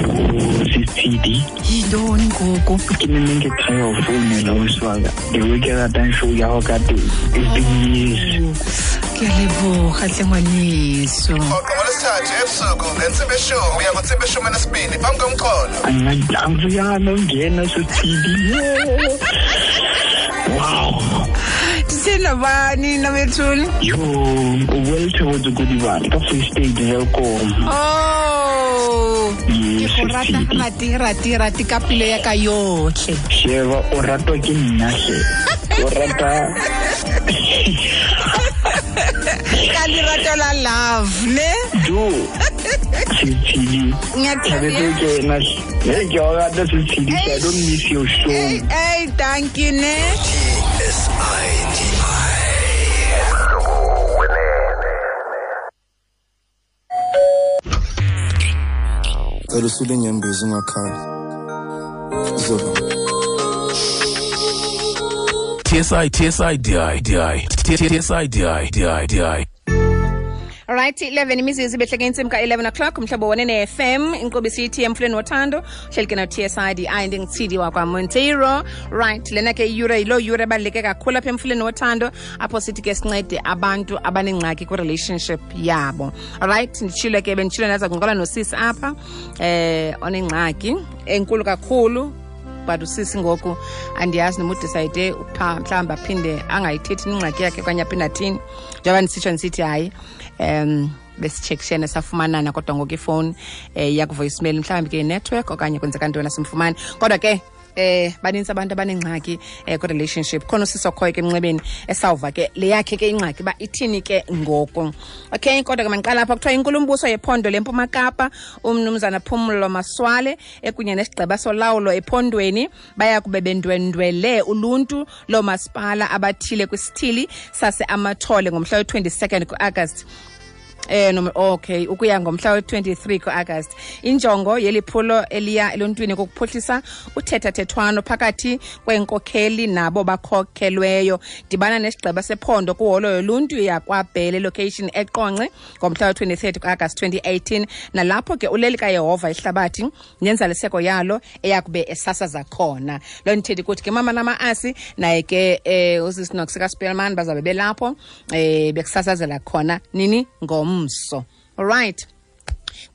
Sisitshidi. Yintoni ngoku? Ke ne nne ke try go founela ausi wa ka. The way ke ratang show ya gago ka teng. It's been years. Ke a leboga tle ngwaneso. Rhoqo ngolwesithathu ebusuku ngentsimbi yeshumi uya kwintsimbi yeshumi elinesibini phambi komxholo. Angiyana ungena Sisitshidi. Wow. Ndithe nabani nabethuni? Yo, o welthe Kodibane ka Free State Welkom. Oh. Ke go rata rati rati rati ka pelo ya ka yotlhe. Sheba o ratwa ke nna hle. O rata ka lerato la love ne? Jo. Sitshidi. Ngiyakuthanda. Ke na. Hey, ke o rata Sitshidi. I don't miss your show. Hey, hey, thank you ne. SIDI. Cela usule inyembezi ungakhali. Zoba. TSI TSI DI DI TSI DI DI DI. Alright, 11 imizuzu ibehleke intsimbi ka-11 o'clock umhlobo wonene FM inkqubo isithi emfuleni wothando uhleli ke no-TSIDI ndingutshidi wakwaMonteiro. Right, lena ke iyure yiloo yure ebaluleke kakhulu apha emfuleni wothando apho sithi ke sincede abantu abanengxaki kwi-relationship yabo. Alright, nditshilo ke benditshilo ndaza kuncokola nosisi apha onengxaki enkulu kakhulu. But usisi ngoku andiyazi noma udecide mhlawumbi aphinde angayithethi ingxaki yakhe okanye aphinde athini. Njengoba ndisitsho ndisithi hayi, besitshekishene safumanana kodwa ngoku ifowuni yaku-voicemail mhlawumbi ke i-network okanye kwenzeka ntoni asimfumani. Kodwa ke banintsi abantu abanengxaki kwi-relationship. Khona usisi okhoyo ke emnxebeni esawuva ke le yakhe ke ingxaki uba ithini ke ngoku. Okay, kodwa ke mandiqala apha. Kuthiwa inkulumbuso yephondo leMpuma Kapa umnumzana Phumulo Masualle ekunye nesigqeba solawulo ephondweni baya kube bendwendwele uluntu loomasipala abathile kwisithili saseAmathole ngomhla we-22 ku-Agasti. No, okay, ukuya ngomhla we-23 ku-Agasti. Injongo yeli phulo eliya eluntwini kukuphuhlisa uthethathethwano phakathi kweenkokheli nabo bakhokhelweyo. Dibana nesigqeba sephondo kwiholo yoluntu yakwaBhele location eQonce ngomhla we-23 ku-Agasti 2018, nalapho ke uleli kaYehova ihlabathi nenzaliseko yalo eyakube esasaza khona. Loo nto ithi kuthi ke mama namaasi naye ke usisi Nox kaSpeelman bazabe belapho bekusasazela khona nini ngomso. All right.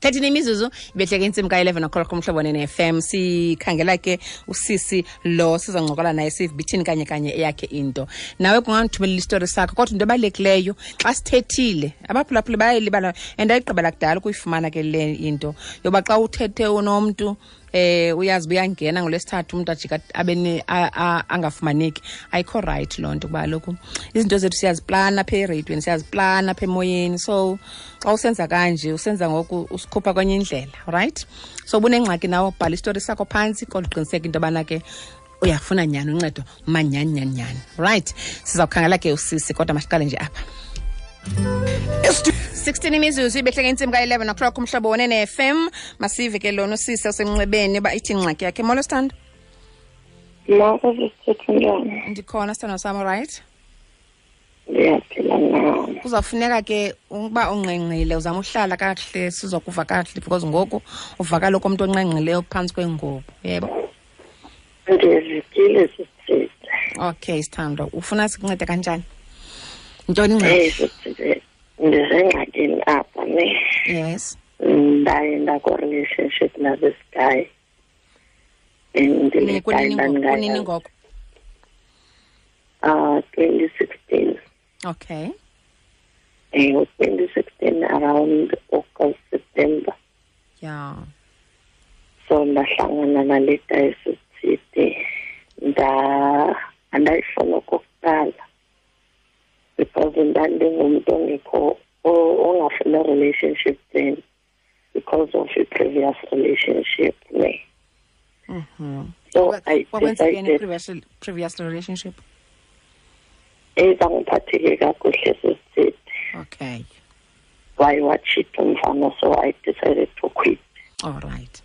13 imizuzu ibehleke intsimbi ka-11 o'clock umhlobo ne-FM. Sikhangela ke usisi lo sizoncokola naye sive bithini kanye kanye eyakhe into. Nawe kungandithumelela isitori sakho, kodwa into ebalulekileyo xa sithethile abaphulaphuli bayayilibala and ayigqibela kudala ukuyifumana ke le into yoba xa uthethe unomntu uyazi uyangena ngolwesithathu umuntu ajika abe angafumaneki. Ayikho right loo nto kuba kaloku izinto zethu siyaziplana apha ereyidweni, siyaziplana apha emoyeni. So xa usenza kanje usenza ngoku usikhupha kwenye indlela, right? So ubunengxaki nawe bhala isitori sakho phantsi kodwa uqiniseke into yobana ke uyafuna nyhani uncedo manyhani nyhani nyhani, right? Sizawukhangela ke usisi kodwa masiqale nje apha. 16 imizuzu ibehleke intsimbi ka-11 o'clock umhlobo wonene FM. Masive ke lona usisi osemnxebeni uba ithi ingxaki yakhe. Molo sithando. Molo sisithethe njani? Ndikhona sithando sam, right? Ndiyaphila nam. Kuzawufuneka ke ukuba ungqengqile uzama uhlala kakuhle sizokuva kakuhle because ngoku uvakala okomntu onqengqileyo phantsi kwengubo, yebo? Ndizikile sisithethe. Okay sithando, ufuna sikuncede kanjani? Ntoni ingxaki? Sisithethe, ndisengxakini apha ne. Yes. Ndaye ndako-relationship na this guy. And le guy Kunini ngoku? 2016. Okay. 2016 around August, September. Yeah. So ndahlangana nale guy sisithethe. Andayifuna okokuqala. Because ndandingumntu ongekho ongafuna relationship then because of a previous relationship ne. So I decided previous relationship. Ezangiphatheke kakuhle sisithethe. Okay. Why watch it umfana, so I decided to quit. All right.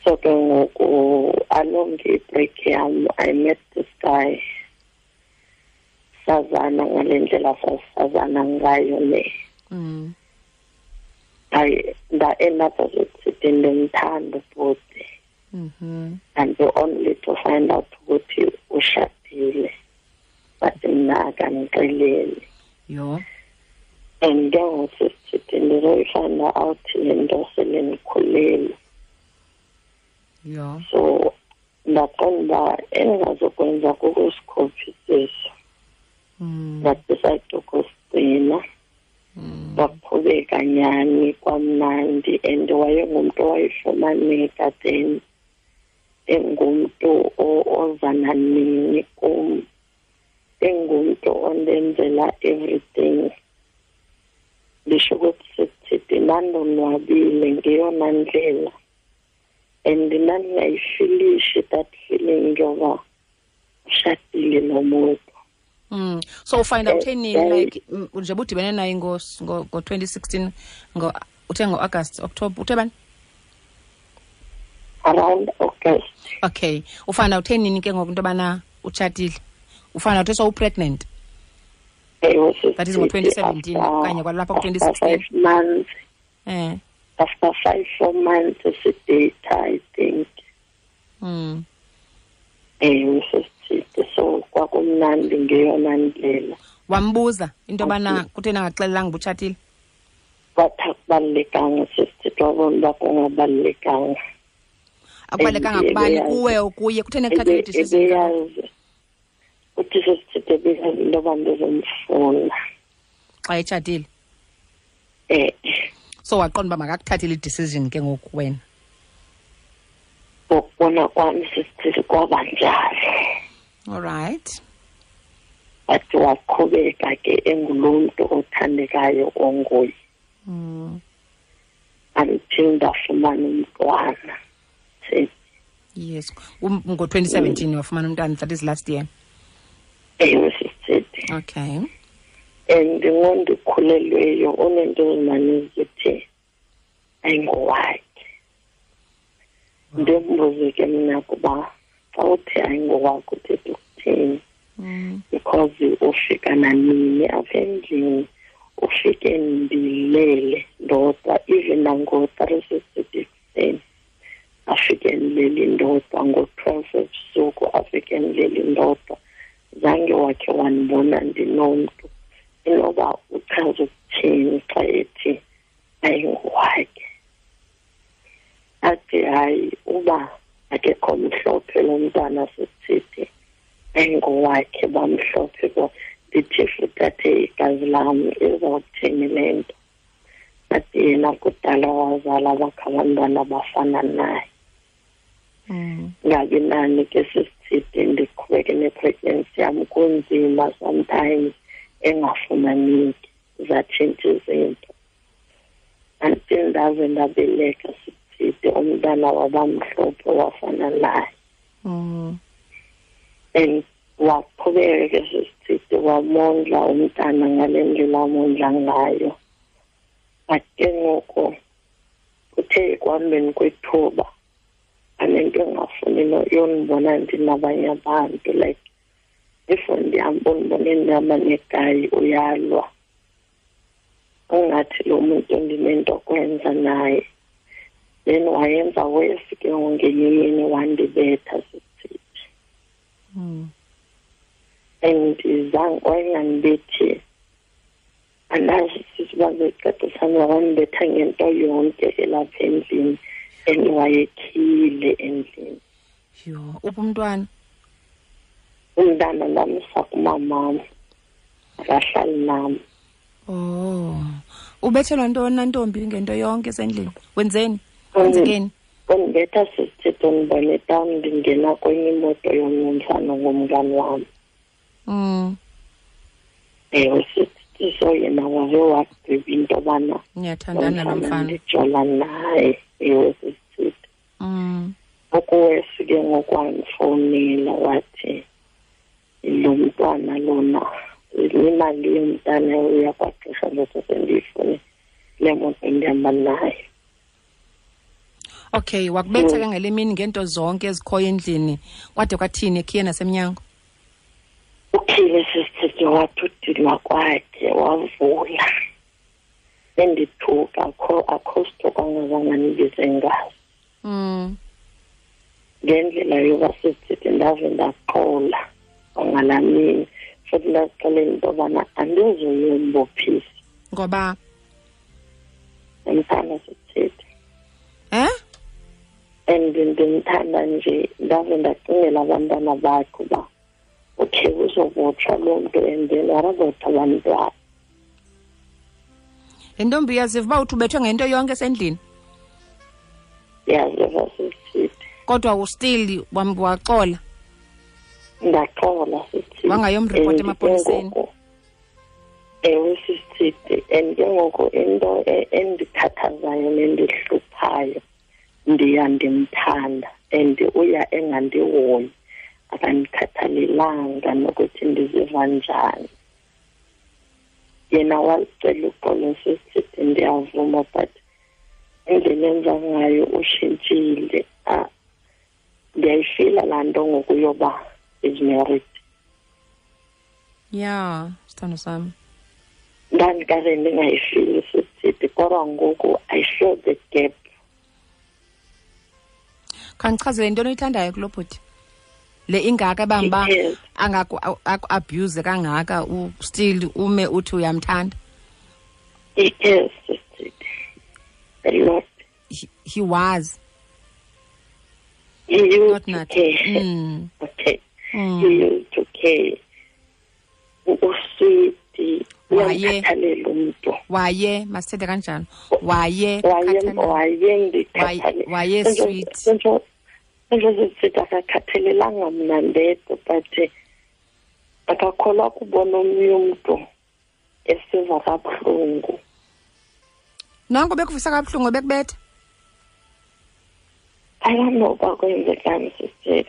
So ke ngoku along the break yam I met this guy. Sazana ngale ndlela sasazana ngayo le. Hayi, nda-end up sesithi ndimthanda futhi. And only to find out ukuthi ushadile, but mna akandixeleli. Yho. And ke ngoku sisithi ndizoyifind out le nto sele ndikhulelwe. Yho. So ndaqonda uba endingazokwenza kukusikhuphisisa. Ndadicide ukusigcina. Kwaqhubeka nyani kwamnandi, and wayengumntu owayefumaneka then, engumntu oza nanini kum, engumntu ondenzela everything. Ndisho ukuthi sithi ndandonwabile ngeyona ndlela, and ndandingayifilishi that feeling yoba ushadile nomuntu. So ufind out nini, like nje budibene naye ngo-2016, uthe ngo-August, October, uthe bani? Around August. Okay. Ufind out nini ke ngoku into yobana utshatile? Ufind out so pregnant? Ewe. That is ngo-2017 okanye kwalapha ku-2016? 5 months. After 5, 4 months sidate, I think. Ewe, sesithide, so kwakumnandi ngeyona ndlela. Wambuza into yobana kutheni angaxelelanga uba utshatile? Wathi akubalulekanga, sesithide, wabona uba kungabalulekanga. Akubalulekanga kubani, kuwe okuye? Kutheni ekuthathela i-decision? Ebeyazi uthi sesithide ebeyazi into yoba ndizomfuna xa etshatile. Eh. So waqonda uba makakuthathele i-decision ke ngoku wena? Ngokubona kwami sesithile kwaba njalo. All right. But waqhubeka ke engulo mntu othandekayo onguye. Until ndafumana umntwana. Yes. Ngo-2017 wafumana umntwana, that is last year. Ewe, sisithi. Okay. And ngondikhulelweyo unento ezimane zithi ayingowakhe. Ndimbuze ke mna kuba xa uthi ayingowakhe uthetha ukuthini? Because ufika nanini apha endlini, ufike ndilele ndodwa, even nango-3 sisithi ekuseni afike ndilele ndodwa, ngo-12 ebusuku afike ndilele ndodwa. Zange wakhe wandibona ndinomntu. Inoba uchaza ukuthini xa ethi ayingowakhe? Athi hayi, uba akekho mhlophe lo mntwana sisithi ayingowakhe, bamhlophe bo. Ndithi futhi athe igazi lam, izawuthini le nto? Athi yena kudala wazala bakhe abantwana abafana naye. Ngabi nani ke sisithi ndiqhubeke ne-pregnancy yam, kunzima sometimes engafumaneki, zatshintsha izinto. Until ndaze ndabeleka sisithi, umntana wabamhlophe wafana naye. And waqhubeka ke sisithi wamondla umntana ngale ndlela amondla ngayo. But ke ngoku kuthe ekuhambeni kwethuba anento engafuni yondibona ndinabanye abantu, like if ndihamba undibone ndihamba negayi uyalwa, ungathi lo muntu ndinento kwenza naye. Then wayenza worse ke ngenye imini, wandibetha sisithi. And zange wayengandibethi, andazi sisi uba becacisana, wandibetha ngento yonke elapha endlini, and wayekhile endlini. Yho, uphi umntwana? Umntana ndamsa kumamam, akahlali nam. Oh. Ubethelwa ntoni na ntombi ngento yonke esendlini? Wenzeni? Kwenzekeni? Undibetha sisithi ndibone etawuni ndingena kwenye imoto yomnye umfana ngumngani wam. Ewe sisithi, so yena wave wagqiba into yobana niyathandana lo mfana. Ndijola naye, ewe sisithi. Okuwesi ke ngoku wandifowunela wathi lo mntwana lona, imali yomntana uyakwagqirha ngoku sendiyifune le moto ndihamba nayo. Okay, wakubetha ke ngale mini ngento zonke ezikhoyo endlini. Kwade kwathini, ekhiye nasemnyango? Ukhile sisithi, wathi udinwa kwakhe wavula. Endithuka, akho sithuko angazange andibize ngaso. Ngendlela yoba sisithi ndave ndaqola kwangalaa mini, futhi ndazixelela into yobana andizoyombophisa. Ngoba? Ndimthanda sisithi. Eh? And ndimthanda nje, ndave ndacingela abantwana bakhe uba okay, uzobotshwa loo mntu and then what about abantwana? Le ntombi uyaziva uba uthi ubethwe ngento yonke esendlini? Ndiyaziva sisithi. Kodwa ustill waxola? Ndaxola sisithi. Wangayomripota emapoliseni? Ewe sisithi, and ke ngoku into endikhathazayo nendihluphayo, ndiya ndimthanda and uya engandihoyi, akandikhathalelanga nokuthi ndiziva njani. Yena wazicela uxolo sisithi, ndiyavuma, but indlela enza ngayo ushintshile. Ndiyayifila laa nto ngoku yoba is married. Yeah, sithando sami. Ndandikade ndingayifili sisithi, kodwa ngoku I feel the gap. Khandichazele into oyithandayo kulo bhuti. Le ingaka bamba Yes. angaku abuse kangaka, still ume uthi uyamthanda. Yes, sisithi. A lot. He was. He used Not to not. care. Okay. He used to care. Uswiti. Waye. Uyamkhathalela umntu. Waye, masithethe kanjalo. Waye, Waye, khathalela. waye ndikhathalela. Waye sweet. Senzo sithi akakhathalelanga mna ndedwa, but akakholwa kubona omnye umntu esiva kabuhlungu. Nanko bekuvisa kabuhlungu bekubetha? I don't know uba kwenzekani sisithi.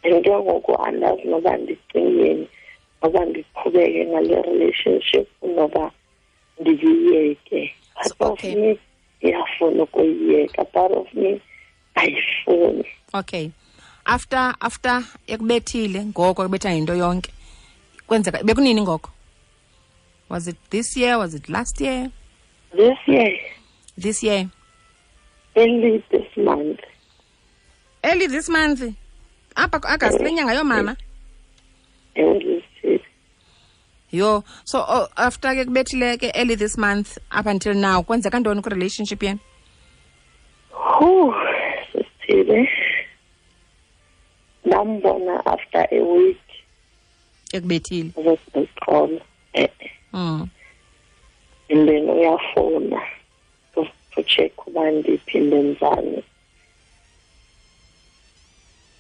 And ke ngoku andazi noba ndicingeni, noba ndiqhubeke ngale relationship noba ndiyiyeke. Part of me iyafuna ukuyiyeka, part of me ayifuni. Okay. After ekubethile ngoko, ekubetha ngento yonke. Kwenzeka bekunini ngoko? Was it this year? Was it last year? This year. This year. Early this month. Early this month. Apha ku-August, le nyanga yoomama? Early this year. Yo, so after ke kubethile ke early this month up until now, kwenzeka ntoni ku-relationship yenu? Whew, sisithile. Ndambona after a week. Ekubethile. Uzosiqola. And then uyafona to check uba ndiphi, ndenzani.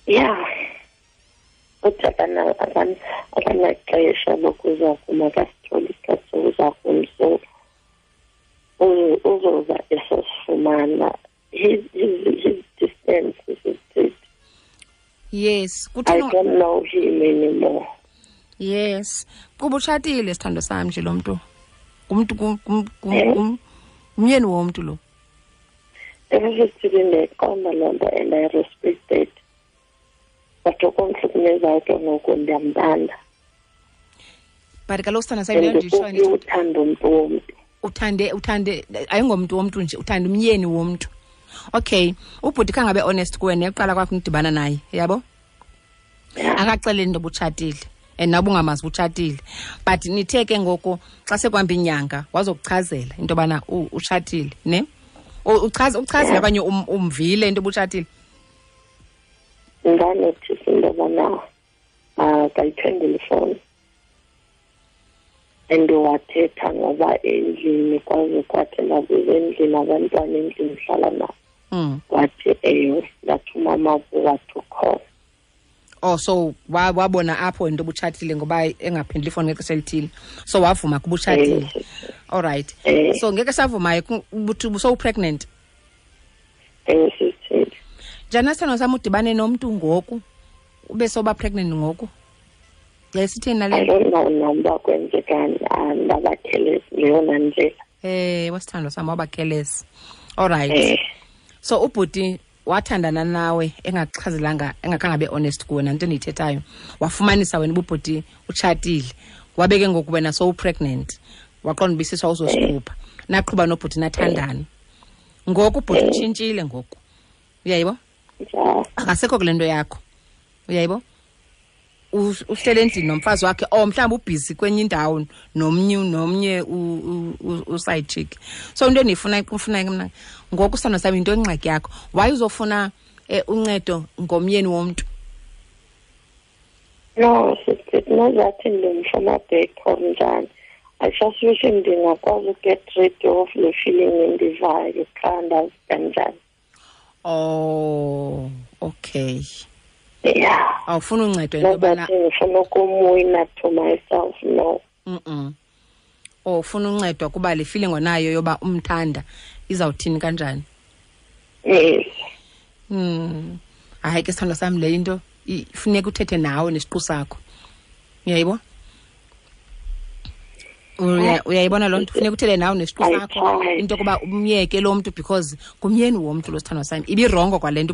Yeah. Uthi akanaxesha lokuza kum, akasitholi isikhathi sokuza kum, so uzoza esosifumana. His distance is it. Yes. I Kutheni don't know him anymore. Yes. Kuba utshatile sithando sami nje lo mntu. Ngumntu ngumyeni womntu lo. Everything ndiyayiqonda loo nto and I respect it. But okumhlukumezayo ke ngoku ndiyamthanda. But kaloku sithando sami, And leyo nditsho ndithi uthanda umntu womntu. Uthande, ayingomntu womntu nje, uthanda umyeni womntu. Okay, ubhuti khangabe honest kuwe neqala kwakho nidibana naye, yabo? Akaxeleli into obutshatile. And nawe ungamazi utshatile. But nithe ke ngoku xa sekuhamba inyanga wazokuchazela into yobana utshatile, ne? Uchazele okanye umvile into obutshatile? Ndanothisa into yobana akayiphenduli ifowuni. And wathetha ngoba endlini kwaze kwathi ndabuza endlini, abantwana endlini hlala nabo. Wathi ewe, ndathi umama wathi ukhona. Oh, so wabona apho into obutshatile ngoba engaphenduli ifowuni ngexesha elithile. So wavuma kuba utshatile. All right. So ngeke savumayo ubuthi ubu-pregnant. Sisithile. Njani sithando sami udibane nomntu ngoku ube soba pregnant ngoku? Yayisithini nale? I don't know noma kwenzekani, ndabakhelezi ngeyona ndlela. Wasithandwa sami wabakhelezi. All right. So ubhuti wathandana nawe engakuchazelanga, engakhange abe honest kuwe nanto endiyithethayo. Wafumanisa wena ububhuti utshatile. Wabe ke ngoku wena so pregnant. Waqonda uba isisu awuzosikhupha. Naqhuba nobhuti nathandana. Ngoku ubhuti utshintshile ngoku. Uyayibo? Akasekho kule nto yakho. Uyayibo? Uhlele endlini nomfazi wakhe, or mhlawumbi ubhizi kwenye indawo nomnye uside chick. So into endiyifuna ke mna ngoku sithando sami, into engxaki yakho, why uzofuna uncedo ngomyeni womntu? No, nozathi ndimfuna back or njani. I just wish ndingakwazi uget rid of le feeling endivayo qha, ndazi kanjani. Oh, okay. Yeah. Awufuna uncedo into yobana ngifuna ukumwina to myself, no. Oh, ufuna uncedo kuba le feeling onayo yoba umthanda izawuthini kanjani? Yes. Hayi ke sithando sami, le into ifuneka uthethe nawe nesiqu sakho. Uyayibo? Uyayibona loo nto? Funeka uthethe nawe nesiqu sakho into yokuba umyeke lo mntu, because ngumyeni womntu lo, sithando sami. Ibirongo kwale nto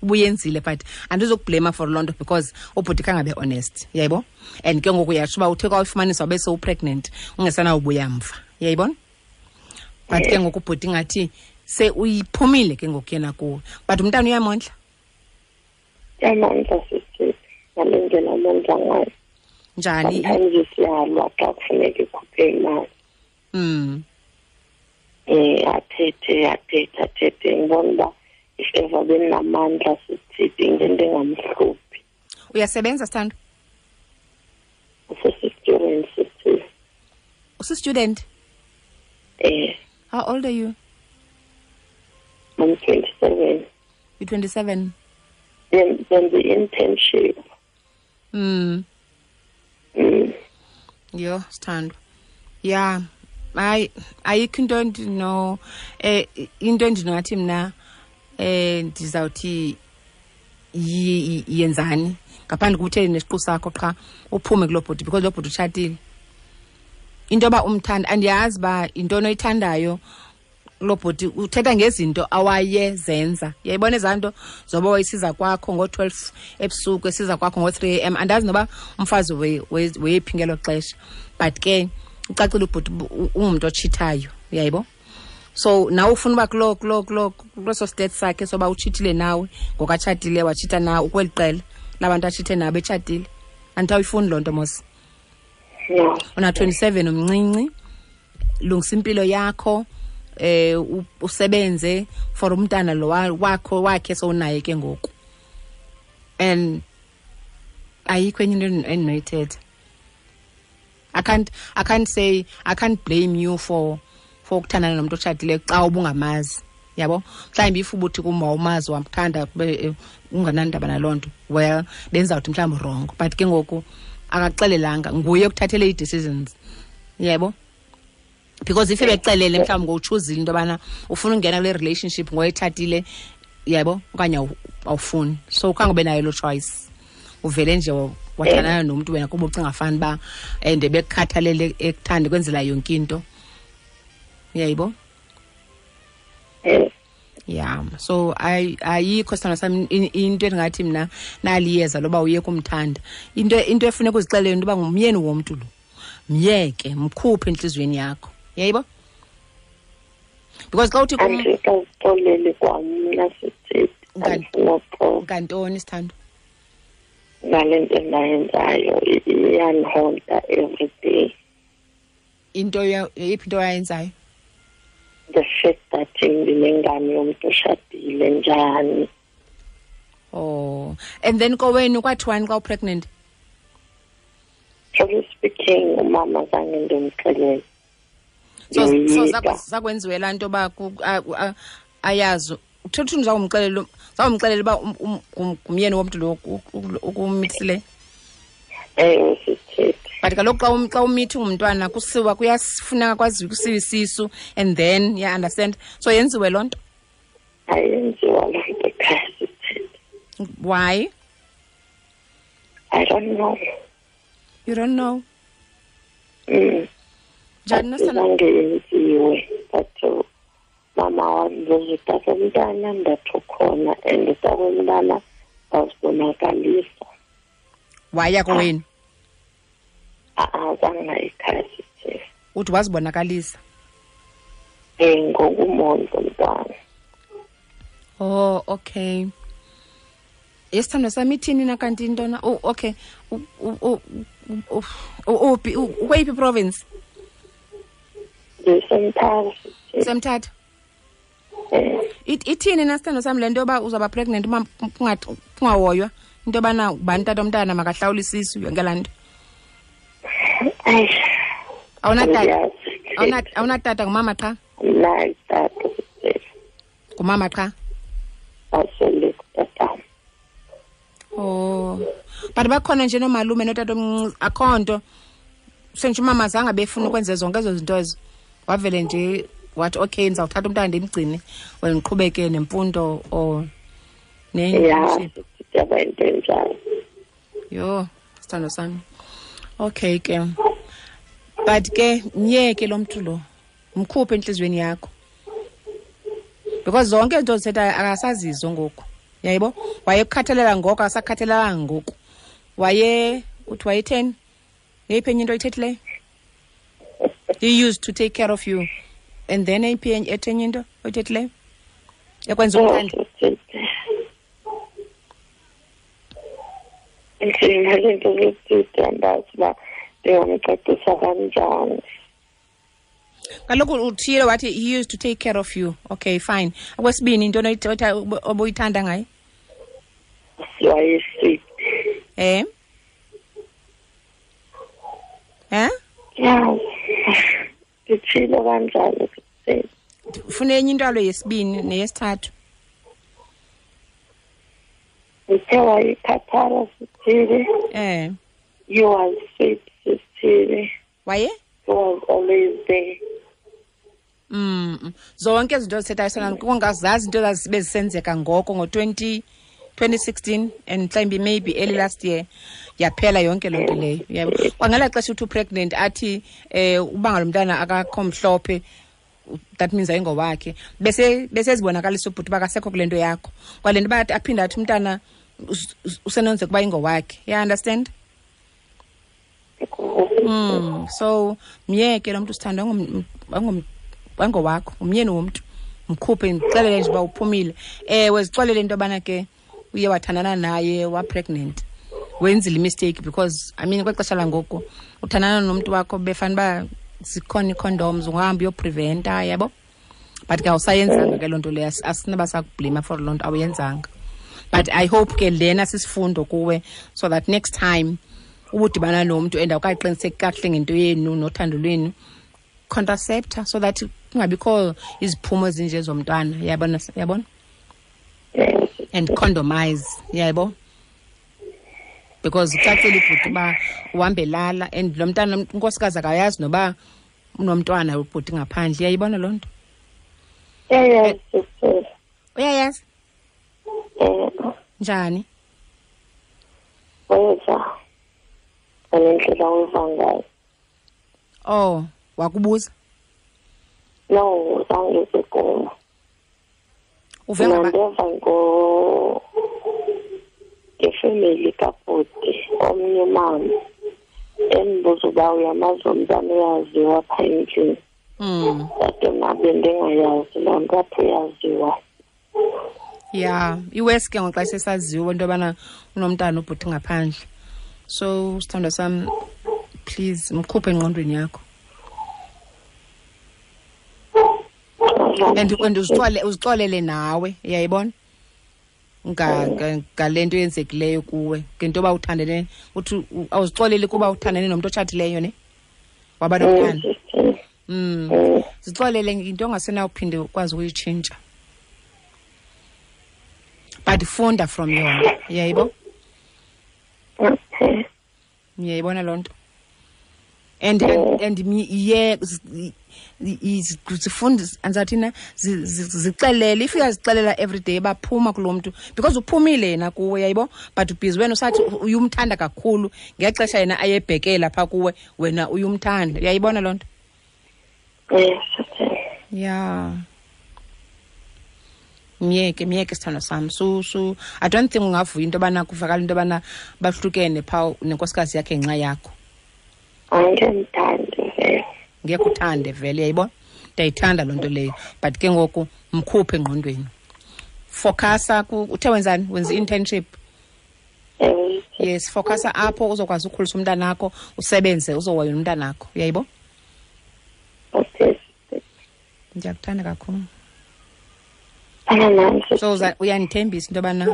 ubuyenzile, but andizokublema for loo nto because ubhuti khangabe honest. Uyayibo? And ke ngoku uyatsho uba uthe kwayifumanisa wabe sewupregnant, ungesanawubuya mva. Uyayibona? But ke ngoku ubhuti ngathi se uyiphumile ke ngoku yena kuwe. But umntana uyamondla? Uyamondla sisi, ngale ndlela amondla ngayo. Njani? Sometimes siyalwa xa kufuneka ikhuphe imali. Athethe ngibona uba if ever benamandla sithi into engamhluphi. Uyasebenza sithando? Usisi-student sisi. Usi-student? How old are you? I'm 27. You're 27? Then the internship. Yo, sithando. Yeah. Ayikho into endino into endinothi mna ndizawuthi yenzani ngaphandle kokuthi nesiqu sakho qha uphume kuloo bhuti, because loo bhuti utshatile. Into yoba umthanda, andiyazi uba yintoni oyithandayo loo bhuti, uthetha ngezinto awayezenza. Uyayibona ezaa nto zoba wayesiza kwakho ngo-12 ebusuku, esiza kwakho ngo-3 a.m. Andazi noba umfazi weyephi ngelo xesha, but ke ucacile ubhuti ungumntu otshithayo. Uyayibo? So nawe ufuna uba kulo state sakhe soba utshithile nawe ngokatshatile, watshitha nawe ukweli qela labantu atshithe nabo etshatile. Andithi awuyifuni loo nto mos. Una 27, umncinci, lungisa impilo yakho, usebenze for umntana lo wakho wakhe sowunaye ke ngoku. And ayikho enye into endinoyithetha. I can't say, I can't blame you for ukuthandana nomuntu otshatileyo xa ubungamazi. Yabo? Mhlawumbi if ubuthi kum wawumazi wamthanda unganandaba naloo nto, well, benzawuthi mhlawumbi wrong. But ke ngoku akaxelelanga, nguye okuthathele ii-decisions. Yebo? Because if ebexelele mhlawumbi ngowutshuzile into yobana ufuna ungena kule relationship ngoyetshatile, yebo, okanye awufuni. So khange ube nayo loo choice. Uvele nje wathandana nomntu wena kuba ucinga fani uba and bekukhathalele ekuthande kwenzela yonke into. Uyayibo? Yeah. So ayikho sithando sami into endingathi mna naliyeza loba uye kumthanda. Into efuneka uzixelele into yoba ngumyeni womntu lo. Myeke, mkhuphe entliziyweni yakho. Uyayibo? Because xa uthi kum andikazixoleli kwamna sithi ngantoni sithando? Ngale nto endayenzayo iyandihonta every day. Into yiphi into oyayenzayo? The fact that ndinengane yomntu oshadile njani. Oh, and then kowenu kwathiwani xa upregnant? Truly speaking, umama zange ndimxelele. So zakwenziwe laa nto yoba ayazi. Uthetha uthini zawumxelela uba ngumyeni womntu lo ukumithisileyo? Ewe, sithethe. But kaloku xa umithi ungumntwana kusiwa kuyafuneka kwaziwe kusiwa isisu and then yeah, understand. So yenziwe loo nto? Ayenziwa loo nto ekhaya sithethe. Why? I don't know. You don't know? Njani zange yenziwe, but mama wandibuza utata womntana, ndathi ukhona, and utata womntana wazibonakalisa. Waya kowenu? Zange ekhaya sithethe. Uthi wazibonakalisa? Ngokumondla umntwana. Oh, okay. Yesithandwa sami, ithini na kanti intona? Oh, okay. Uphi, ukweyiphi province? NdiseMthatha. Semthatha. Ithini na, sithandwa sami, le nto yoba uzawuba pregnant uma kungahoywa into yobana ubani tata omntana makahlawule isisu, yonke laa nto? Ayi. Awunatata? Andiyazi. Awunatata, ngumama qha? Mna tata. Ngumama qha? Asele kutatam. Oh, but bakhona nje noomalume notata omncinci, akho nto sentsho umama zange befuna ukwenza zonke ezo zinto ezo, wavele nje wathi okay, ndizawuthatha umntana ndimgcine wena ndiqhubeke nemfundo or Ya. ne-internship? Yaba into enjalo. Yho, sithando sami, okay ke, but ke myeke lo mntu lo, mkhuphe entliziyweni yakho, because zonke izinto zithethayo akasazizo ngoku, yayibo? Wayekukhathalela ngoko, akasakhathalelanga ngoku. Waye uthi wayetheni? Yeyiphi enye into oyithethileyo? He used to take care of you, and then eyiphi ethi enye into oyithethileyo ekwenza umthande? Inzima le nto zesithethe, andazi uba ndingamcacisa kanjani. Kaloku uthile wathi he used to take care of you, okay, fine. Okwesibini, into obuyithanda ngaye? Wayesweet. Eh eh Ya, nditshilo kanjalo sisithethe. Ufuna enye into alo yesibini neyesithathu. Ndithe wayekhathala, sithile. He was sweet, sithile. Waye? He was always there. Zonke izinto zithethayo sona kungazazi into bezisenzeka ngoko ngo-20 2016 and mhlawumbi maybe early last year, yaphela yonke loo nto leyo, yabo? Kwangela xesha uthi upregnant, athi uba ngalo mntana akakho mhlophe, that means ayingowakhe, bese besezibonakalisa ubhuti uba akasekho kule nto yakho, kwale nto uba aphinde athi umntana usenonzeka uba ingowakhe, ya understand? So myeke lo mntu, sithando, angowakho, umyeni womntu, mkhuphe, ndixelele nje uba uphumile. Ewe, zixolele into yobana ke uye wathandana naye, wapregnant, wenzile imistake, because I mean, kwexesha langoku uthandana nomntu wakho befana uba zikhona ii-condoms, ungahamba uyopreventa, yabo? But ke awusayenzanga ke loo nto leyo, asinoba sakublima for loo nto awuyenzanga. But I hope ke lena sisifundo kuwe, so that next time ubudibana nomntu and awukaqiniseki kakuhle ngento yenu nothando lwenu, contraceptor, so that kungabikho iziphumo ezinje zomntwana, yabona, yabona? And condomize, yabo, because ucacile ubhuti uba uhambelala and lo mntana unkosikazi akayazi noba unomntwana ubhuti ngaphandle, uyayibona loo nto? Uyayazi, sisithethe. Uyayazi? Njani? Weza ngalendlela weva ngayo. Oh, wakubuza? No, zange kum. Uve Mna ngaba ndeva ngefemeli kabhuti, omnye umama endibuza uba uyamazi umntana uyaziwa phaa endlini. Kodwa mna bendingayazi loo nto, apho uyaziwa. Ya, iwesi ke ngoxa sesaziwa into yobana unomntana ubhuti ngaphandle. So sithandwa sam, please mkhuphe engqondweni yakho. And uzixolele nawe, uyayibona? Ngale nto yenzekileyo kuwe, ngento yoba uthandene, uthi awuzixoleli kuba uthandene nomntu otshatileyo, ne? Waba nomntana. Zixolele into ongasenawuphinde ukwazi ukuyitshintsha. But funda from yona, uyayibo? Okay. Uyayibona loo nto? And ye zifunda, andizathina, zixelele, if uyazixelela every day baphuma kulo mntu, because uphumile yena kuwe, yayibo? But ubhizi wena usathi uyumthanda kakhulu ngexesha yena ayebhekela phaa kuwe, wena uyumthanda, uyayibona loo nto? Yes, okay. Yeah. Myeke, myeke sithando sam. Su I don't think ungavuya into yobana kuvakala into yobana bahlukene phaa nenkosikazi yakhe ngenxa yakho. Angemthandi vele. Ngekho uthande vele, uyayibona, ndiyayithanda loo nto leyo, but ke ngoku mkhuphe engqondweni, focusa. Uthe wenzani? Wenza i-internship? Ewe. Yes, focusa apho, uzokwazi ukhulisa umntanakho, usebenze, uzohoya umntanakho, uyayibo. Okay. Ndiyakuthanda kakhulu. Fana nam. So uyandithembisa into yobana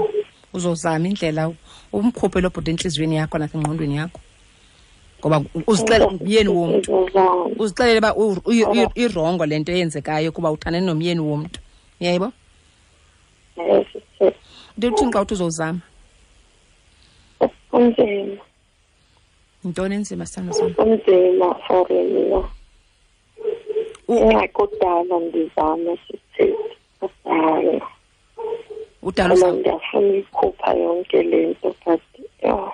uzozama indlela umkhuphe lo bhuti entliziyweni yakho nasengqondweni yakho, ngoba uzixele ngumyeni womntu. Ndizozama. Uzixelele uba irongo le nto eyenzekayo, kuba uthandane nomyeni womntu, uyayibo. Ewe, sisi. Into uthini xa uthi uzozama? Kunzima. Yintoni enzima, sithando sam? Kunzima for mna. Ingxaki kudala ndizama, sisi, kudala. Udala Ngoba ndiyafuna uyikhupha yonke le nto, but yho.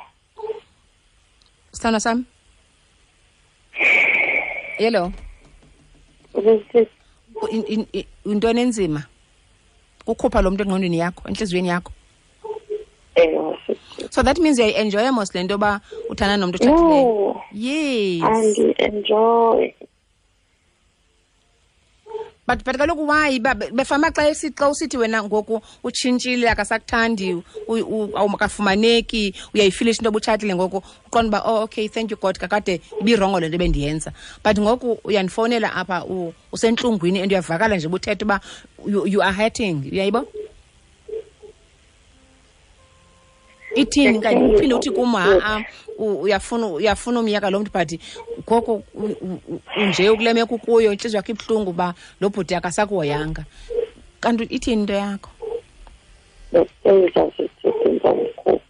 Sithando sam, yelo. Sisi. Yintoni enzima? Kukhupha lo mntu engqondweni yakho, entliziyweni yakho? Ewe, sisi. So that means uyayi-enjoya mos le nto yoba uthanda nomntu otshatileyo? No. Yes. Andi-enjoy. But kaloku why befama xa usithi wena ngoku utshintshile, akasakuthandi, awukafumaneki, uyayifilisha into obutshatile ngoku, uqonda uba oh okay, thank you God, kakade ibirongo le nto bendiyenza, but ngoku uyandifowunela apha usentlungwini and uyavakala nje ubuthetha uba you are hurting, uyayibo? Ithini kanye? Uphinde uthi kum ha-a, uyafuna umyeka lo mntu, but ngoku unje ukule meko ukuyo, intliziyo yakho ibuhlungu uba lo bhuti akasakuhoyanga. Kanti ithini into yakho? Ndikuthembisa, sisi, ndizomkhupha.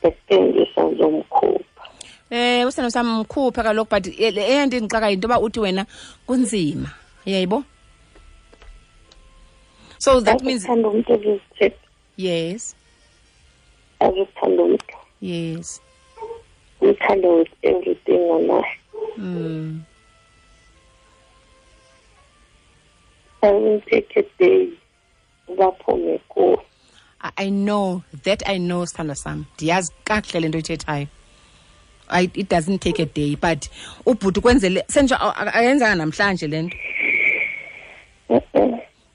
Ndikuthembisa, ndizomkhupha. Usana sam, mkhuphe kaloku, but eyento endixaka yinto yoba uthi wena kunzima, uyayibo? So that means Azithanda umntu, ezizithethe. Yes. Azithanda umntu. Yes. Umthanda with everything onayo. I won't take a day baphume kuwo. I know that, I know, sithandwa sam, ndiyazi kakuhle le nto oyithethayo. It doesn't take a day, but ubhuti kwenzele sentsho ayenzanga namhlanje le nto.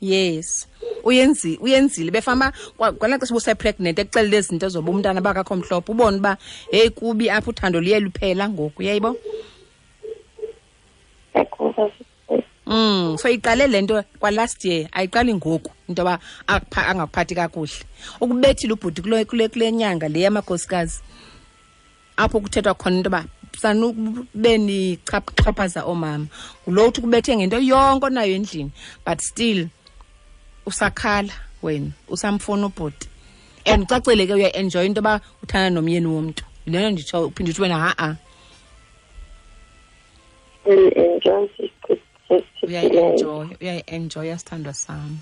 Yes, uyenzile befama kwalaa xesha ubuse-pregnant, ekuxelele ezi zinto zoba umntana bakakho mhlophe, ubone uba heyi kubi apha, uthando luye luphela ngoku, uyayibo? So iqale le nto kwa last year, ayiqali ngoku into yoba angakuphathi kakuhle. Ukubethile ubhuti kule nyanga le yamakhosikazi, apho kuthethwa khona into yoba sanube nichaphaza oomama. Ngulo uthi ukubethe ngento yonke onayo endlini, but still usakhala wena, usamfuna ubhuti. And ucacile ke uyaenjoy into yoba uthanda nomyeni womntu. Le nto nditsho, uphinde uthi wena ha-a. Uyayi-enjoy. Uyayi-enjoya, sithandwa sam.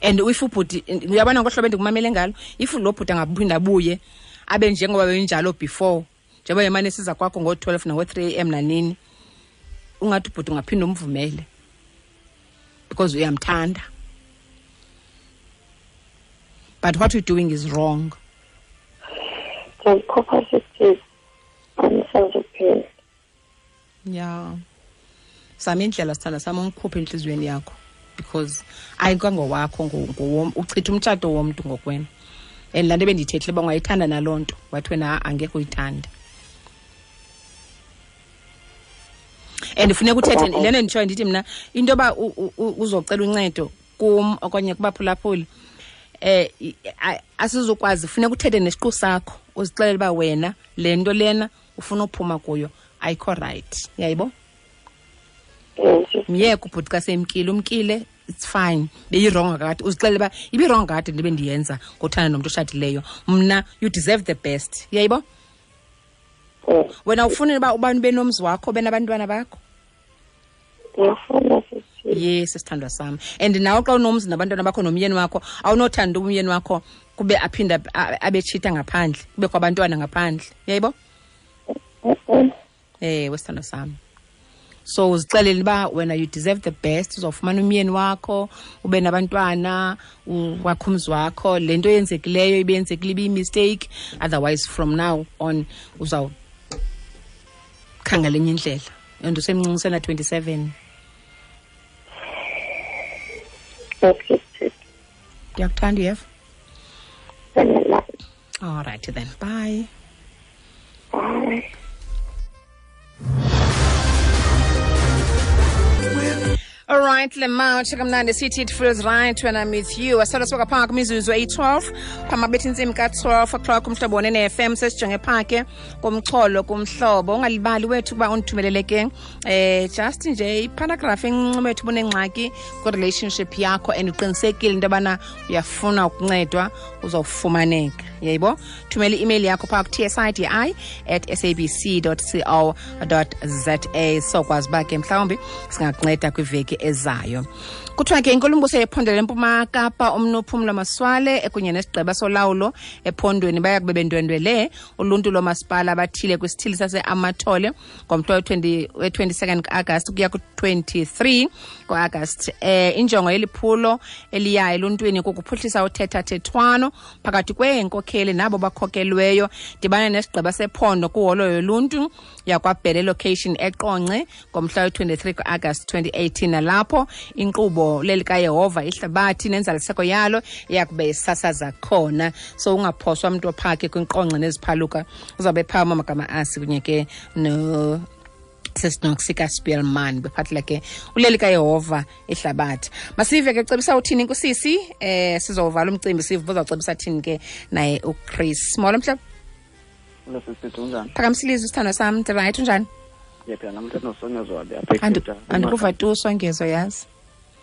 And if ubhuti, uyabona ngohlobo endikumamele ngalo, if lo bhuti angaphinda abuye abe njengoba benjalo before, njengoba emane siza kwakho ngo-12 nango-3 AM nanini, ungathi ubhuti ungaphinda umvumele because uyamthanda. But what you're doing is wrong. Ndiyayikhupha, sisi, andisazuphinda. Yeah. Zama indlela, sithanda sam, umkhuphe entliziyweni yakho, because ayikangowakho, uchitha umtshato womntu ngokwena. And laa nto ebendiyithethile uba ungayithanda naloo nto, wathi wena ha-a, angekhe uyithande. And funeka uthethe le nto nditshoyo, ndithi mna into yoba uzocela uncedo kum okanye kubaphulaphuli, asizukwazi. Funeka uthethe nesiqu sakho, uzixelele uba wena le nto lena ufuna uphuma kuyo ayikho right, uyayibo? Myeke ubhuti xa semkile, umkile, it's fine. Beyirongo kakade, uzixelele uba ibirongo kakade ndibe ndiyenza ngothanda nomntu oshadileyo. Mna, you deserve the best, uyayibo? Wena ufuna uba ubani ube nomzi wakho, ube nabantwana bakho? Ndiyafuna, sisi. Yes, sithandwa sam. And nawe xa unomzi nabantwana bakho nomyeni wakho, awunothanda umyeni wakho kube aphinde abetshita ngaphandle, kubekho abantwana ngaphandle, uyayibo? Ewe, sithandwa sam. So uzixelele uba wena you deserve the best, uzawufumana umyeni wakho, ube nabantwana, wakho umzi wakho. Le nto yenzekileyo ibiyenzekile, ibiyimistake, otherwise from now on uzawukhangela Khangela enye indlela. And usemncinci usena 27. Okay. Ndiyakuthanda uyeva. All right then. Bye. Bye. All right, Lemar, kamnandi sithi it feels right when I'm with you. Asala soka phaa kwimizuzu eyi-12 phamabetha intsimbi ka-12 o'clock umhlobo wonene-FM sesijonge phaa ke kumxholo kumhlobo. Ungalibali wethu ukuba undithumelele ke just nje iparagraph encinci wethu ubunengxaki kwi-relationship yakho and uqinisekile into yobana uyafuna ukuncedwa uzawufumaneka. Yayibo? Thumela i-email yakho phaa ku-tsidi@sabc.co.za sokwazi uba ke mhlawumbi singakunceda kwiveki ezayo. Kuthiwa ke inkulumbuso yephondo lempuma Kapa umnuphumlo Maswale ekunye nesigqeba solawulo ephondweni baya kube bendwendwele uluntu lomasipala abathile kwisithili sase-Amathole ngomhla we-22 ka-Agasti ukuya ku-23 ku-Agasti. Injongo yeliphulo eliya eluntwini kukuphuhlisa uthethathethwano phakathi kweenkokheli nabo bakhokelweyo. Dibana nesigqeba sephondo kuholo yoluntu yakwaBhele location eQonce ngomhla we-23 ku-Agasti 2018, nalapho inkqubo lelikaYehova ihlabathi nenzaliseko yalo iyakube isasaza khona. So ungaphoswa mntu ophake kwinqonce neziphaluka, uzawube phaa amagama asi kunye ke no sesinoxika Spielman bephathela ke uleli kaYehova ihlabathi. Masive ke cebisa uthini kusisi, sizovala umcimbi sive uzawucebisa thini ke naye uChris. Molo mhlobo. Phakamsilizwe isithando sam, right unjani? Ndiyaphila namhlanje nosongezo wabe apha. Andikuva tu Songezo yazi.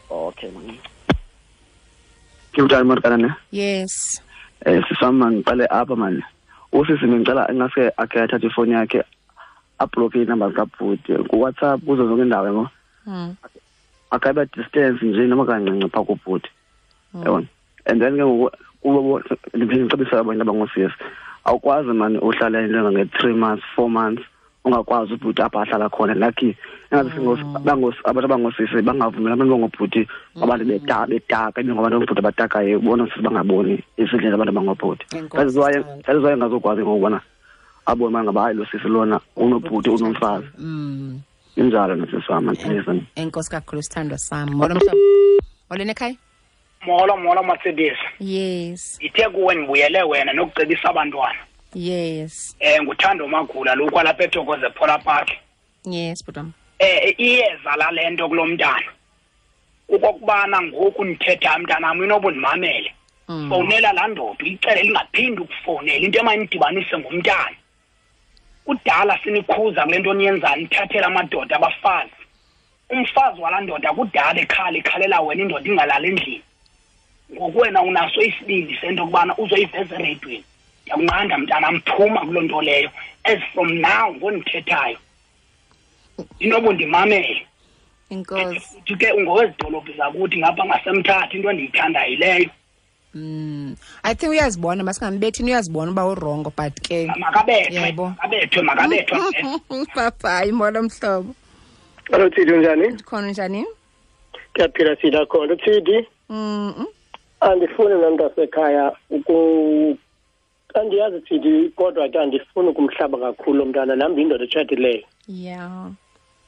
Okay man. Kunjani Markana ne? Yes. Sisam ngiqale apha man. Usisi ngicela ingase akhe athathe ifoni yakhe ablock inamba kabhuti ku WhatsApp kuzo zonke indawo yabo. Akabe distance nje noma kancinci pha kubhuti. Yabona. And then ke ngoku kubo ndicebisa abantu abangosisi. Awukwazi man uhlala into nge 3 months 4 months ungakwazi ubhuti apha ahlala khona. Lucky engathi abantu abangosisi bangavumela abantu bangobhuti abantu betaka ngabantu abangobhuti abatakayo ubona sisi bangaboni izindlela abantu abangobhuti. That is why ngazokwazi ngokubona abona ngaba hayi lo sisi lona unobhuti unomfazi. Injalo nosisi wami manje. Enkosi kakhulu sithandwa sami. Molo mhlobo. Molweni ekhaya. Molo molo Mercedes. Yes. Ithe kuwe ndibuyele wena nokucebisa abantwana. Yes. Nguthando Magula lo kwalapha eThokoze Phola Park. Yes, bhutam. Iyeza la lento kulomntana. Ukokubana ngoku ndithetha mntanami inobundimamele. Fonela laa ndoda uyicele lingaphindi ukufonela into emayinidibanise ngumntana. Kudala sinikhuza kule nto niyenzayo nithathela amadoda abafazi. Umfazi walaa ndoda kudala ekhala ikhalela wena indoda ingalali endlini. Ngoku wena unaso isibindi sento yokubana uzoyiveza ereyidweni. Ndiyakunqanda mntanam, phuma kuloo nto leyo. As from now ngondithethayo inobundimamele. Inkosi. Futhi ke ungowezidolophu zakuthi ngapha ngasemthatha into endiyithandayo leyo. I think uyazibona masingambethi uyazibona uba urongo but ke makabethwe makabethwe. Bye molo mhlobo. Hello Tsidi, unjani? Ndikhona, unjani? Ndiyaphila Tsidi, akhona Tsidi. Andifuni nomntasekhaya andiyazi Tsidi kodwa ke andifuni ukumhlaba kakhulu mntana nam ndiyindoda etshatileyo. Yeah.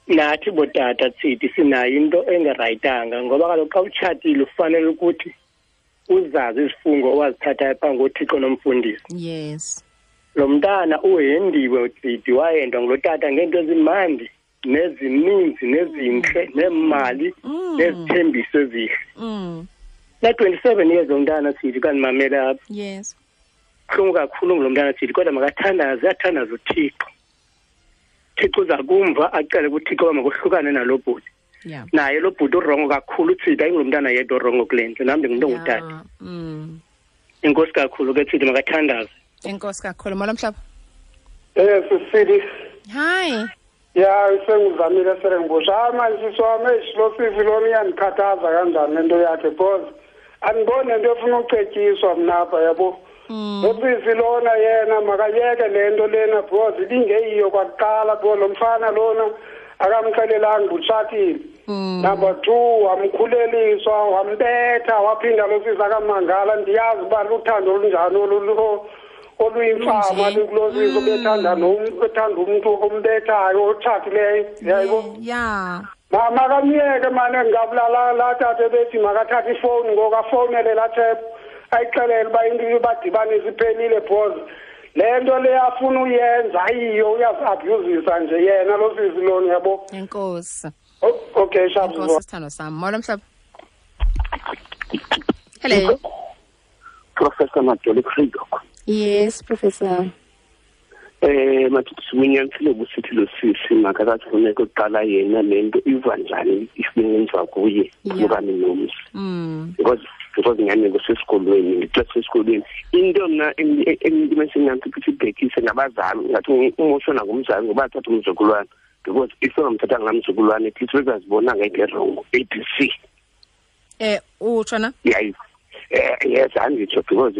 Nathi botata Tsidi sinayo into engerayitanga ngoba kaloku xa utshatile ufanele ukuthi uzazi izifungo owazithathayo phambi koThixo nomfundisi. Yes. Lo mntana uhendiwe Tsidi, wahendwa ngulo tata ngeento ezimandi nezininzi nezintle neemali nezithembiso ezihle. Na 27 years umntana Tsidi kandimamela apha. Yes. Buhlungu kakhulu ngulo mntana Tsidi kodwa makathandaze, athandaze uThixo. Thixo uza kumva acele kuThixo uba makohlukane nalo bhuti. Yeah. Naye lo bhuti urongo kakhulu Tsidi, ayingulo mntana yedwa orongo kule nto, nam ndingumntu ongutata. Enkosi kakhulu ke Tsidi, makathandaze. Enkosi kakhulu. Molo mhlobo. Sisidi. Hi. Ya, sengizamile serengibosha. Hayi manje sisi wami, lo sisi lona iyandikhathaza kanjani lento yakhe because andiboni nento efuna ucetyiswa mna apha yabo. Lo sisi lona yena makayeke le nto lena because ibingeyiyo kwakuqala because lo mfana lona akamxelelanga utshatile. Number 2 wamkhuleliswa wambetha waphinda lo sisi akamangala. Ndiyazi uba luthando olunjani olu oluyimfama lukulo sisi obethanda ethanda umntu ombethayo otshatileyo, yayibo. Makamyeke mane ngabulala laa tata ebethi makathathe ifowuni ngoku afowunele laa thephu ayixelele uba into ibadibanisa iphelile, because le nto le afuna uyenza ayiyo, uyazi-abhuzisa nje yena lo sisi lona, yabo. Enkosi. Okay, sharp. Enkosi sithando sam. Molo mhlobo. Hello. Professor Madoli Kridok. Yes, Professor. Mathi unyanisile busithi lo sisi makakathi funeka uqala yena le nto iva njani ifingenziwa kuye okanye nomzi. Because nyani kusesikolweni, ngixesha esikolweni. Into mna endimesinganto ukuthi ibhekise ngabazali, ngathi umoshona ngumzali ngoba athatha umzukulwana. Because if ungamthatha ngamzukulwana at least bezazibona ngeke wrong ABC. Utshona? Yeah. Yes, anditsho because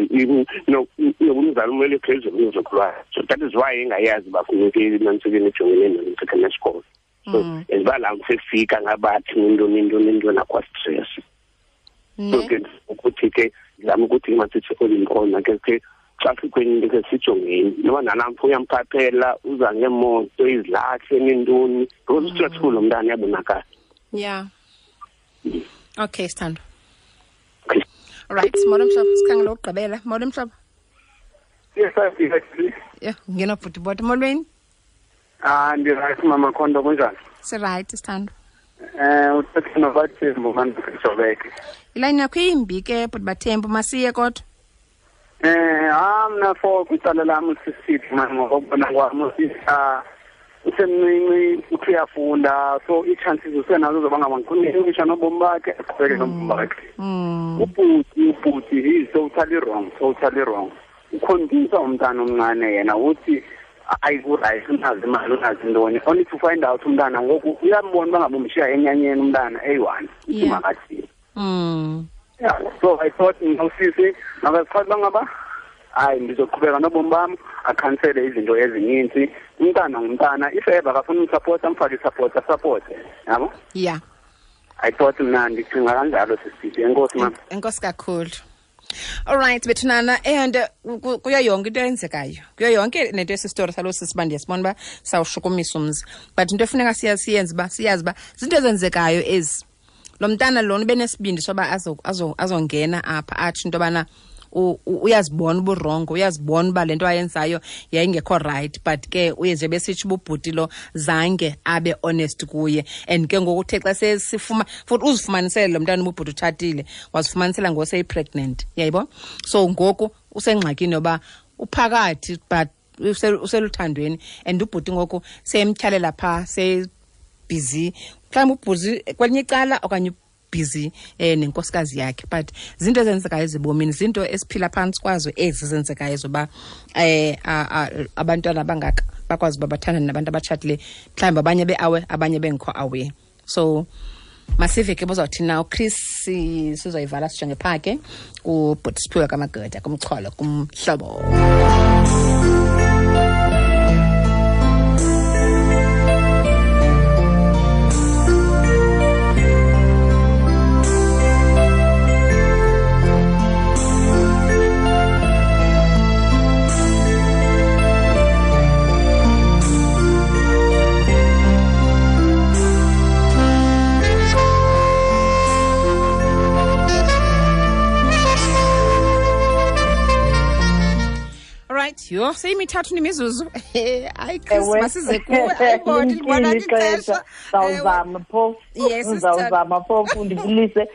no umzali umele phezulu umzukulwana. So that is why engayazi bafuneke nantsike nejongene nomthetho nesikolo. So eziba la mfika ngabathi into nakwa stress. So ke ukuthi ke ngizama ukuthi masithi olimkhona ke xa sikweni ke sijongeni noma nalamfo uyamphaphela uza ngemoto izilahle nentoni because ustressful umntana yabonakala. Yeah. Okay, sithando. All right, molo mhlobo, sikhangela ukugqibela. Molo mhlobo. Yes, I Yeah, ngena bhuti bot molweni. Ndi right mama Khondo, kunjani? Si right sithando. Uthethe noBathembu manje Jobeke. Ilayini yakho imbi ke bhuti Bathembu, masiye kodwa. Mna for kwicala lam usisithi mani ngokubona kwam usisa usemncinci uthi uyafunda, so ii-chances usenazo zoba ngaba ngikhulisa nobomi bakhe aqhubeke nobomi bakhe. Ubhuti he is totally wrong. Ukhombisa umntana omncane yena uthi ayi ku-right unazi imali unazi ntoni, only to find out umntana ngoku uyambona uba ngaba umshiya enyanyeni umntana eyi-one uthi makathini. Yeah, so I thought nosisi makazichaza uba ngaba hayi ndizoqhubeka nobomi bam, akhansele izinto ezininzi. Umntana ngumntana, if ever akafuna umsapota amfake isapota asapote, yabo. Yeah. I thought mna ndicinga kanjalo sisithi. Enkosi mama. Enkosi kakhulu. All right, bethunana, and kuyo yonke into eyenzekayo, kuyo yonke nento esi story salo sisi uba ndiyasibona uba sawushukumisa umzi, but into efuneka siyenze uba siyazi uba zinto ezenzekayo ezi. Lo mntana lona ubenesibindi soba azongena apha atsho into yobana uyazibona uburongo, uyazibona uba le nto ayenzayo yayingekho right, but ke uye nje besitsho ububhuti lo zange abe honest kuye. And ke ngoku uthe xa sesifuma futhi uzifumanisele lo mntana ububhuti utshatile, wazifumanisela ngoku seyi-pregnant, yayibo. So ngoku usengxakini yoba uphakathi but useluthandweni, and ubhuti ngoku seyemtyhalela phaa, seyibhizi mhlawumbi ubhuti kwelinye icala okanye busy nenkosikazi yakhe. But zinto ezenzekayo ezibomini, zinto esiphila phantsi kwazo ezi zenzekayo zoba abantwana abangaka bakwazi uba bathandane nabantu abatshatileyo, mhlawumbi abanye be-awe abanye bengekho awe. So masive ke bozawuthi na uChris, sizoyivala sijonge phaa ke kubhuti Siphiwe kaMageda kumxholo kumhlobo. Yho, seyimithathu nemizuzu. Hayi Chris, masize kuwe. Ayibona libona ixesha. Sawuzama phofu. Yes, uzawuzama phofu ndibulise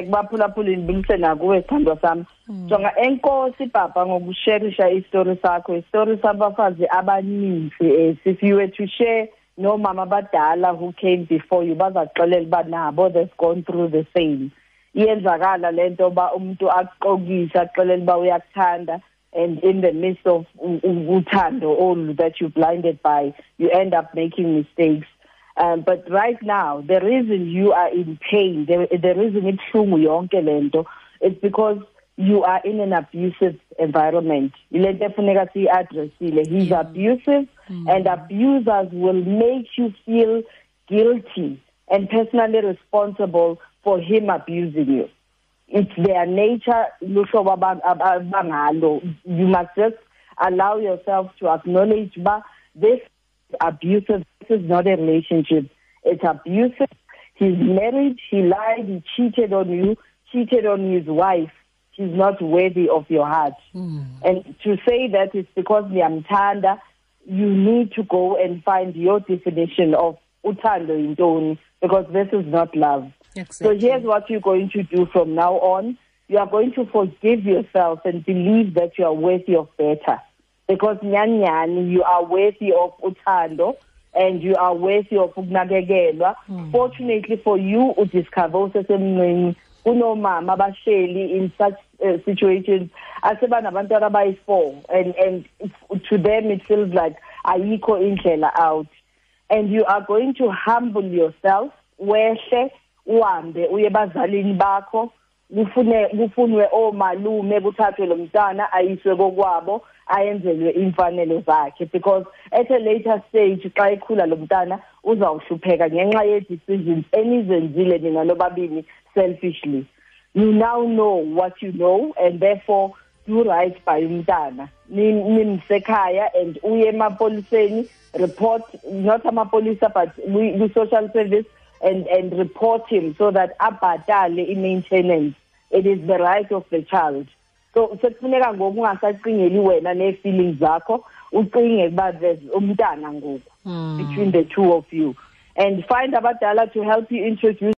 kubaphulaphuli, ndibulise nakuwe sithandwa sam. Jonga, enkosi papa ngokusherisha isitori sakho, isitori sabafazi abaninzi. If you were to share noomama abadala who came before you, bazakuxelela uba nabo they've gone through the same. Iyenzakala le nto uba umntu akuxokise akuxelele uba uyakuthanda, and in the midst of uthando all that you're blinded by, you end up making mistakes. But right now, the reason you are in pain, the reason ibuhlungu yonke lento, it's because you are in an abusive environment. Ile nto efuneka siyi-addressile. He's abusive, and abusers will make you feel guilty and personally responsible for him abusing you. It's their nature. You must just Allow yourself to acknowledge uba this is abusive. This is not a relationship. It's abusive. He's married, he lied, he cheated on you, cheated on his wife. He's not worthy of your heart. And to say that it's because niyamthanda, you need to go and find your definition of uthando yintoni, because this is not love. Exactly. So here's what you're going to do from now on. You are going to forgive yourself and believe that you are worthy of better. Because nyani, you are worthy of uthando and you are worthy of ukunakekelwa. Fortunately for you, udiscover usesemncinci kunomama abahleli in such situations asebanabantwana abayi-4, and to them it feels like ayikho indlela out. And you are going to humble yourself, wehle uhambe uye ebazalini bakho, kufunwe omalume, kuthathwe lo mntana ayiswe kokwabo, ayenzelwe imfanelo zakhe, because at a later stage xa ekhula lo mntana uzawuhlupheka ngenxa ye-decisions enizenzile nina nobabini selfishly. You now know what you know, and therefore do right by umntana. Nimsekhaya and uye emapoliseni, report, not amapolisa but we social service, and report him so that abhatale i-maintenance. It is the right of the child. So sekufuneka ngoku ungasacingeli wena nee-feelings zakho, ucinge uba there's umntana ngoku between the two of you. And find abadala to help you introduce